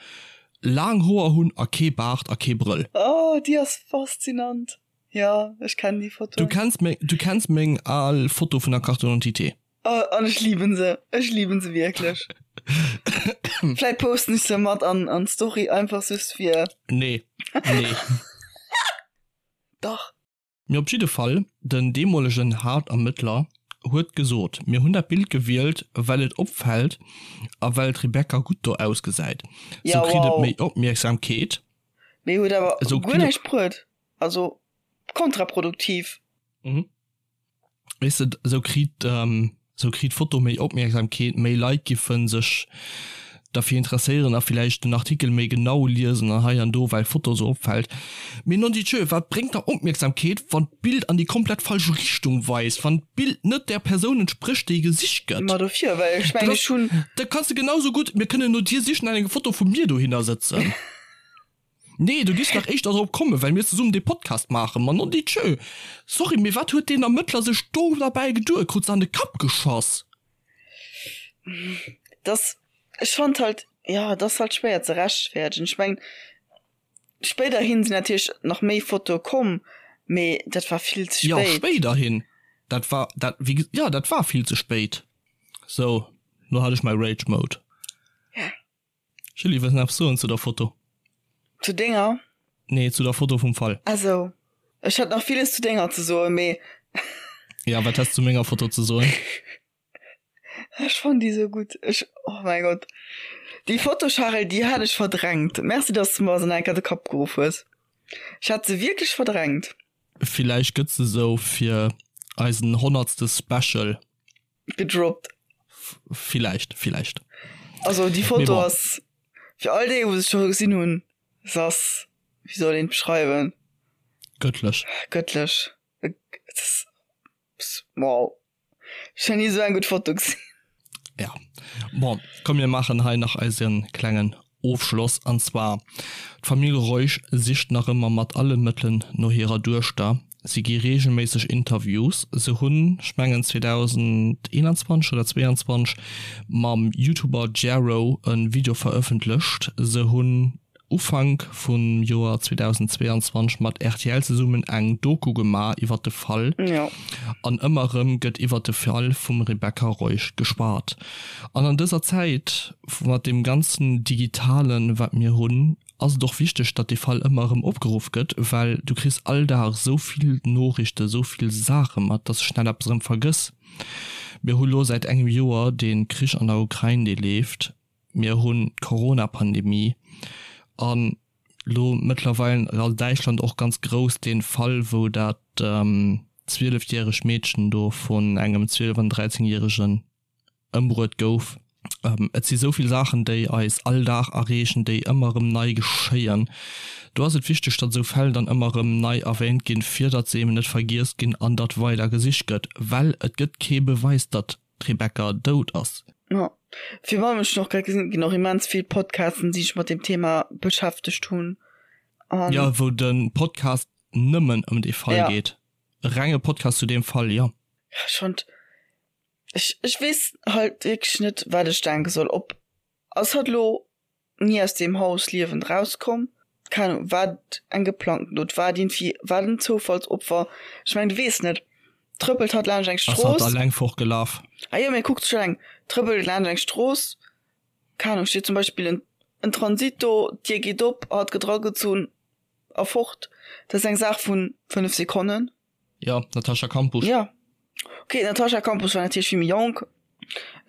laang Hoer hunn a kee Baart a kee Brëll. Oh, déi ass faszinant. Jo, ech kennen déi Foto. Du kenns meng, du kenns meng al Foto vun der Carte d'identité. Oh, an ech lieben se. Ech lieben se wierklech. Vläit posten ech se mat an, an d'Story, einfach just fir. Nee, nee. Dach. Mee op jidde Fall, den deemolegen Haaptermëttler huet gesot, Mir hunn dat Bild gewielt, well et opfält a well d'Rebecca gutt do ausgesäit. Ja, Sou kritt et wow. méi Opmierksamkeet. Mee huet awer Esou guer kritt et. näischt bruet. Also kontraproduktiv. Mhm. Weess de, esou kritt, esou kritt d'Foto méi Opmierksamkeet, méi Leit giffe sech derfir interesséieren a villäicht den Artikel méi genau liesen an hei an do, well d'Foto esou opfält. Mee nondidjö, wat bréngt der Opmierksamkeet, wann d'Bild an déi komplett falsch Richtung weist, wann d'Bild net där Persoun entsprécht, déi gesicht gëtt? Ma dofir, well ech mengen, ech hunn. Da kanns de genau sou gutt, mir kënnen no dir sichen an eng Foto vu mir dohinner sëtzen. Nee, du giffs nach éischter drop kommen, well mir zesummen dee Podcast maachen. Ma nondidjö! Sorry, mee wat huet deen Ermëttler sech do derbäi geduet? Krut se an de Kapp geschoss? Dass, ech fand halt, jo, et ass halt schwéier ze rechtfäerdegen. Ech mengen, spéiderhin sinn natierlech nach méi Fotoe komm, mee dat war vill ze Jo, spéit. spéiderhin. Dat war, dat, wéi ge, jo, dat war vill ze spéit. Sou, lo hat ech mäi Rage Mode. Ja. Julie, wëlls nach eppes soen zu der Foto? Zu denger? Nee, zu der Foto vum Fall. Ah sou. Ech hätt nach villes zu denger ze soen, mee. Ja, wat häss zu menger Foto ze soen? Ech fannen déi sou gutt. Ech, oh mäi Gott. Déi Foto, Charel, déi hat ech verdrängt. Merci, dass de mer se nach eng Kéier de Kapp geruff hues. Ech hat se wierklech verdrängt. Villäicht gëtt se sou fir eisen honnertste Special. Gedroppt. Villäicht, villäicht. Also déi Foto ass fir all déi wou se scho gesinn hunn, se ass, wéi soll een et beschreiwen? Gëttlech. Gëttlech. Wow. Ech hunn ni esou eng gutt Foto gesinn. Ja. Bon, komm mir maachen hei nach eise klengen Ofschloss. An zwar, d'Famill Reusch sicht nach ëmmer mat alle Mëttelen no hirer Duechter. Si gi reegelméisseg Interviews. Se hunn, ech mengen 2021 oder 22, mam YouTuber Jero e Video verëffentlecht. Se hunn Ufank vum Joer 2022 mat rtl zesummen eng Doku gemaach iwwer de Fall. An ëmmer erëm gëtt iwwer de Fall vum Rebecca Reusch geschwat. An an dëser Zäit, mat deem ganzen Digitalen, wat mir hunn, ass et och wichteg, datt dee Fall ëmmer erëm opgeruff gëtt, well du kriss all Dag esou vill Noriichten, esou vill Saache mat, datt s de schnell eppes erëm vergëss. Mir hu lo säit engem Joer dee Krich an der Ukrain, dee leeft, mir hunn d'Corona-Pandemie an lo mëttlerweil a Däitschland och ganz grouss dee Fall, wou dat zwielefjäregt Meedchen do vun engem zwielef an dräizengjäregen ëmbruet gouf. Et si sou vill Saachen, déi eis all Dag erreechen, déi ëmmer erëm nei geschéien. Do ass et wichteg, datt esou Fäll dann ëmmer erëm nei erwähnt ginn, fir datt se eben net vergiess ginn an datt weider gesicht gëtt, well et gëtt kee Beweis, datt d'Rebecca dout ass. Jo, virun allem, ech hunn och grad gesinn, et ginn och immens vill Podcasten, déi sech mat deem Thema beschäftegt hunn an. Jo, wou de Podcast nëmmen ëm dee Fall geet. E renge Podcast zu deem Fall, jo. Ech fonnt, Ech, ech weess halt wierklech net, wat ech denke soll. Ob ass hatt lo ni aus deem Haus liewend rauskomm? Keng Ahnung, war et eng geplangten Dot, war et iergendwéi, war et en Zoufallsopfer? Ech mengen, du weess net. Trëppelt hatt laanscht eng Ass hatt Strooss? alleng fortgelaf? Ah jo, mee kuckt sech alleng. Trëppelt laanscht eng Strooss, keng Ahnung, steet zum Beispill en, en Transit do, d'Dier geet op, hatt gëtt eragezunn a fort. Dat ass eng Saach vu 5 Sekonnen. Jo, d'Natascha Kampusch. Jo. Ok, d'Natascha Kampusch war natierlech vill méi jonk.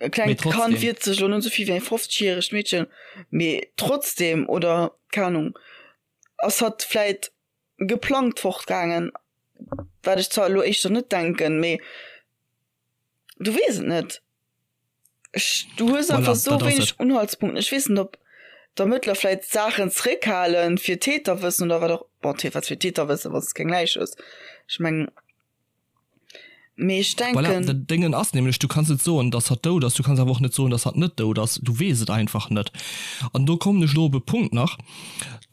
E klengt Kand wiert sech elo net esou vill wéi eng 50 järegt Meedchen, mee trotzdem, oder keng Ahnung, ass hatt vläit geplangt fortgaangen, wat ech zwar elo éischter net denken, mee du weess et net. Ech, du hues einfach Voilà, esou dat ass wéineg et. Unhaltspunkten. Ech weess net, ob d'Ermëttler vläit Saachen zeréckhalen, fir Täter wëssen oder wat och, bon, wat fir Täter wëssen, wann s de keng Läich hues. Ech mengen. Mee ech Voilà, denken. den Déngen ass nämlech, du kanns net soen, dass hatt dout ass, du kanns awer och net soen, dass hatt net dout ass, du weess et einfach net. An do kommen ech elo op e Punkt nach,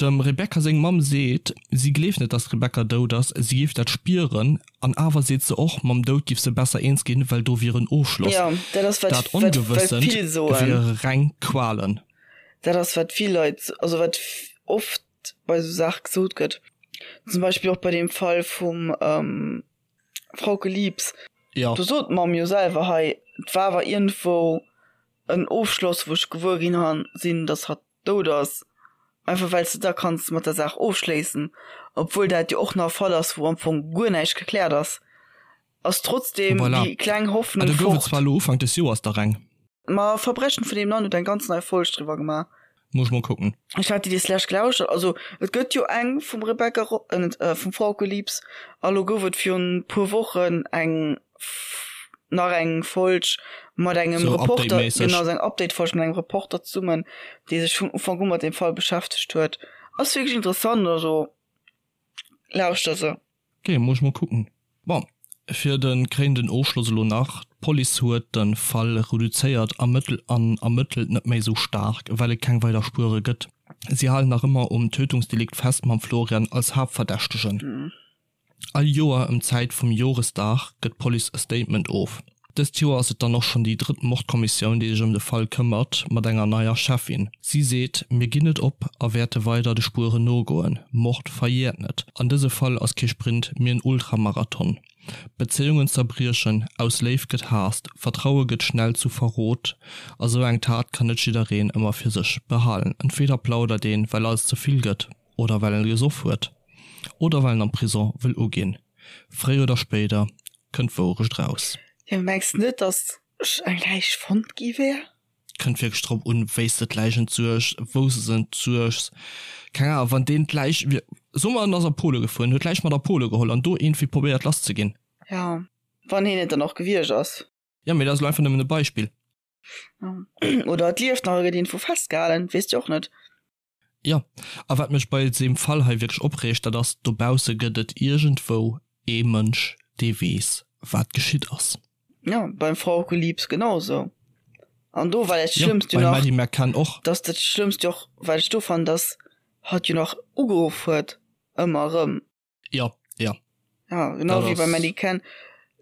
Dem Rebecca seng Mamm seet, si gleeft net, dass d'Rebecca dout ass, si géif dat spieren. An awer seet se och, mam Doud giff se besser eens ginn, well do wier en Ofschloss. Jo, dat ass wat, Dat wat, wat Ongewëssent vill soen. wiere reng Qualen. Dat ass wat vill Leit, also wat oft bei esou Saache gesot gëtt. Zum Beispill och bei deem Fall vum Frauke Liebs. Jo. Do sot d'Mamm jo selwer hei, et war awer iergendwou en Ofschloss, wou ech gewuer ginn sinn, datt hatt dout ass, einfach well s de da kanns mat der Saach ofschléissen, obwuel dat jo och nach e Fall ass, wou am Fong guer näischt gekläert ass, ass trotzdem Voilà. déi kleng Ah, Hoffnung do gouf et fort. zwar elo Ufank des Joers der eng. Ma Verbrechen vun nebenan huet eng ganz nei Folg driwwer gemaach. Muss ech mol kucken. Ech hat déi des lescht gelauschtert. Also et gëtt jo eng vum Rebecca Ro-, äh net, vum Frauke Liebs a lo gouf et virun puer Wochen eng nach eng Folg mat engem So Reporter, Update-méisseg. genau, sou eng Update-Folg mat engem Reporter zesummen, dee sech vun Ufank u mat deem Fall beschäftegt huet. Ass wierklech interessant, also lauschter se. Ok, muss ech mol kucken. Bon, fir de kréinenden Ofschloss elo nach, D'Police huet de Fall reduzéiert ermëttelt an ermëttelt net méi esou staark, well et keng weider Spuere gëtt. Si halen nach ëmmer um Tötungsdelikt fest mam Florian als Haaptverdächtegen. All Joer ëm d'Zäit vum Joresdag gëtt d'Police e Statement of. Dëst Joer ass et dann och schonn déi drëtt Mordkommissioun, déi sech ëm de Fall këmmert, mat enger neier Cheffin. Si seet, Mir ginn net op a wäerte weider de Spueren nogoen. Mord verjäert net. An dëse Fall ass kee Sprint, mee en Ultramarathon. Bezéiungen zerbriechen, aus Léift gëtt Haasst, Vertraue gëtt schnell zu Verrot. A sou eng Tat kann net jiddereen ëmmer fir sech behalen. Entweder plaudert een, well alles ze vill gëtt. Oder well en gesoff huet. Oder well en am Prison wëll uginn. Fréier oder spéider kënnt d'Wourecht raus. Jo, mengs de net, dass eng Läich fonnt gi wär? Kënnt wierklech drop un, wéis de d'Läich entsuergs, wou se se entsuergs. Keng Ahnung, wann deen d'Läich, soe mer en ass a Pole gefuer, en huet d'Läich mat a Pole geholl an do iergendwéi probéiert lass ze ginn. Jo, wann hien et dann och gewiescht ass. Jo, mee dat ass elo einfach nëmmen e Beispill. Oder et lieft nach e gëtt iergendwou festgehalen, weess de och net. Jo, a wat mech bei deem Fall hei wierklech opreegt, dat ass, dobausse gëtt et iergendwou ee Mënsch, dee weess, wat geschitt ass. Jo, beim Frauke Liebs genau esou. An do war dat Jo, Schlëmmst jo beim nach, Maddie McCann och. dass dat Schlëmmst jo och, wat ech do fannen, dass hatt jo nach ugeruff huet, ëmmer erëm. Jo, jo. Ja, genau Dat wéi beim ass. Maddie Ken.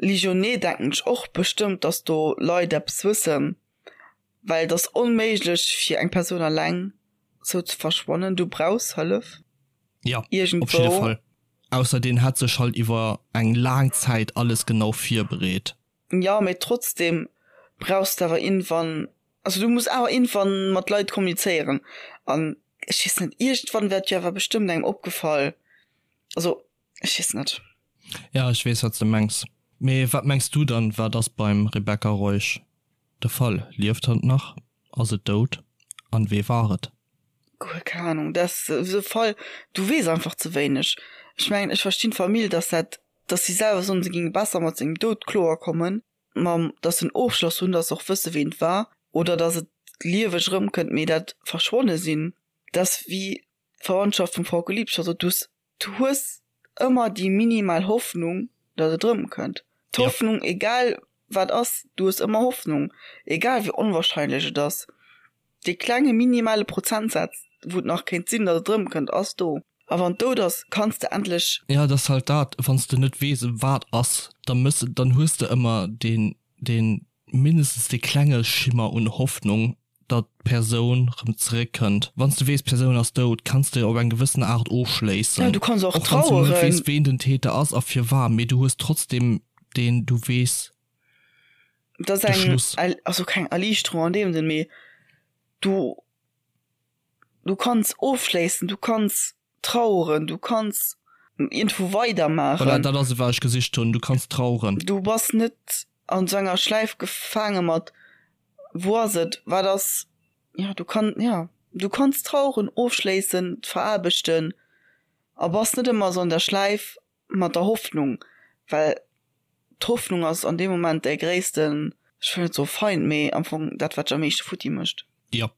Ligionnet denken ech och bestëmmt, dass do Leit eppes wëssen, well et ass onméiglech fir eng Persoun alleng sou ze verschwannen. Du brauchs Hëllef. Ja, op jidde Iergendwou. Fall. Ausser deen hätt sech halt iwwer eng laang Zäit alles genau virbereet. Jo, mee trotzdem brauchs de awer iergendwann, also du muss awer iergendwann mat Leit kommunizéieren an ech weess net, iergendwann wär et jo awer bestëmmt engem opgefall, also ech weess net. Ja, ech weess wat s de mengs. Mee wat mengs du dann, wat ass beim Rebecca Reusch de Fall? Lieft hatt nach? Ass et dout? An wee war et? Guer keng Ahnung, dat ass esou e Fall, du weess einfach ze wéineg. Ech mengen, ech verstinn d'Famill, dass dat, dass si selwer soen, se géinge besser mat sengem Doud kloer kommen, mam, dass se en Ofschloss hunn, dass se och wësse ween et war, oder dass et lieweg erëmkënnt, mee dat verschwonne sinn, dat ass wéi d'Verwandtschaft vum Frauke Liebscher sot, du hues, du hues ëmmer déi minimal Hoffnung, dass et erëmkënnt. D'Hoffnung, egal wat ass, du hues ëmmer Hoffnung, egal wéi onwahrscheinlech et ass. Dee klenge minimale Prozentsaz, wou et nach kéint sinn, datt et erëmkënnt, ass do. A wann et dout ass, kanns de endlech. Jo, et ass halt dat, wann s de net weess, wat ass, da mëss, dann hues de ëmmer deen, deen mindestens dee klenge Schimmer un Hoffnung, datt d'Persoun rëm zeréck kënnt. Wann s de weess d'Persoun ass dout, kanns de op eng gewëssen Aart ofschléissen. Ja, du kanns och Och wann s de net traueren. weess ween den Täter ass a firwat, mee du hues trotzdem deen, du weess Et ass de eng, Schluss. also keng Erliichterung an deem Sënn, mee du, du kanns ofschléissen, du kanns traueren, du kanns iergendwou weidermaachen. Voilà, dat ass et wat ech gesicht hunn, du kanns traueren. Du bass net an esou enger Schläif gefaange mat wou ass et, wat ass, jo du kann, jo du kanns traueren, ofschléissen, et veraarbechten a bass net ëmmer esou an der Schläif mat der Hoffnung, well d'Hoffnung ass an deem Moment däi gréissten, ech wëll net soe Feind, mee am Fong dat wat dech am meeschte futti mécht. Jo.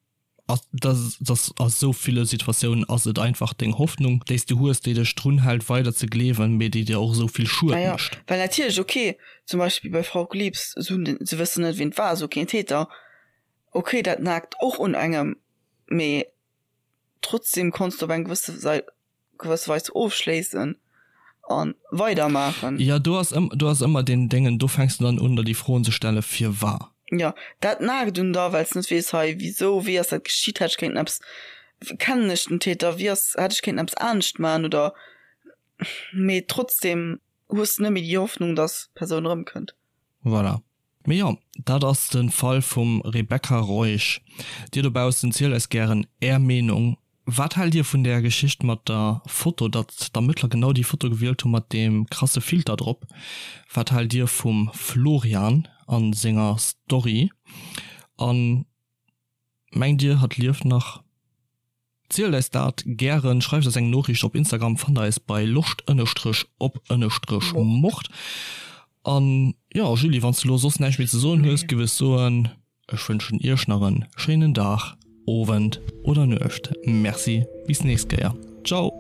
Dass a sou ville Situatiounen ass et einfach deng Hoffnung, déi s du hues, déi dech drun hält weider ze gleewen, mee déi dir och esou vill Schued Naja, mécht. well natierlech, ok, zum Beispill bei Frauke Liebs, se hunn den, se wëssen net wien et war, se hu keen Täter, ok, dat naagt och un engem, mee trotzdem konns de op eng gewësse Sei, gewësse Weis ofschléissen a weidermaachen. Jo, do ass ëm, do ass ëmmer deen Déngen, do fänks de dann un der déi Froen ze stellen, firwar. Jo, dat naagt un der, well s de net weess, hei, wisou, wéi ass dat geschitt, hätt ech kéinten eppes, kennen ech den Täter, wéi ass, hätt ech kéinten eppes anescht maachen oder, mee trotzdem hues de net méi déi Hoffnung, dass d'Persoun erëmkënnt. Voilà. Mee jo, dat ass de Fall vum Rebecca Reusch. Dir dobaussen, zielt eis gären är Meenung. Wat haalt dir vun där Geschicht mat der Foto, datt d'Ermëttler genau déi Foto gewielt hu mat deem krasse Filter drop? Wat haalt dir vum Florian a senger Story? A mengt dir, hatt lieft nach? Zielt eis dat gären, schreift eis eng Noriicht op Instagram, fannt eis bei loscht ënnestrech op ënnestrech mord. An jo Julie, wanns de lo soss näischt méi ze soen hues, giff ech soen, ech wënschen iech nach en schéinen Dag, Owend oder Nuecht. Merci, bis nächst Kéier. Ciao!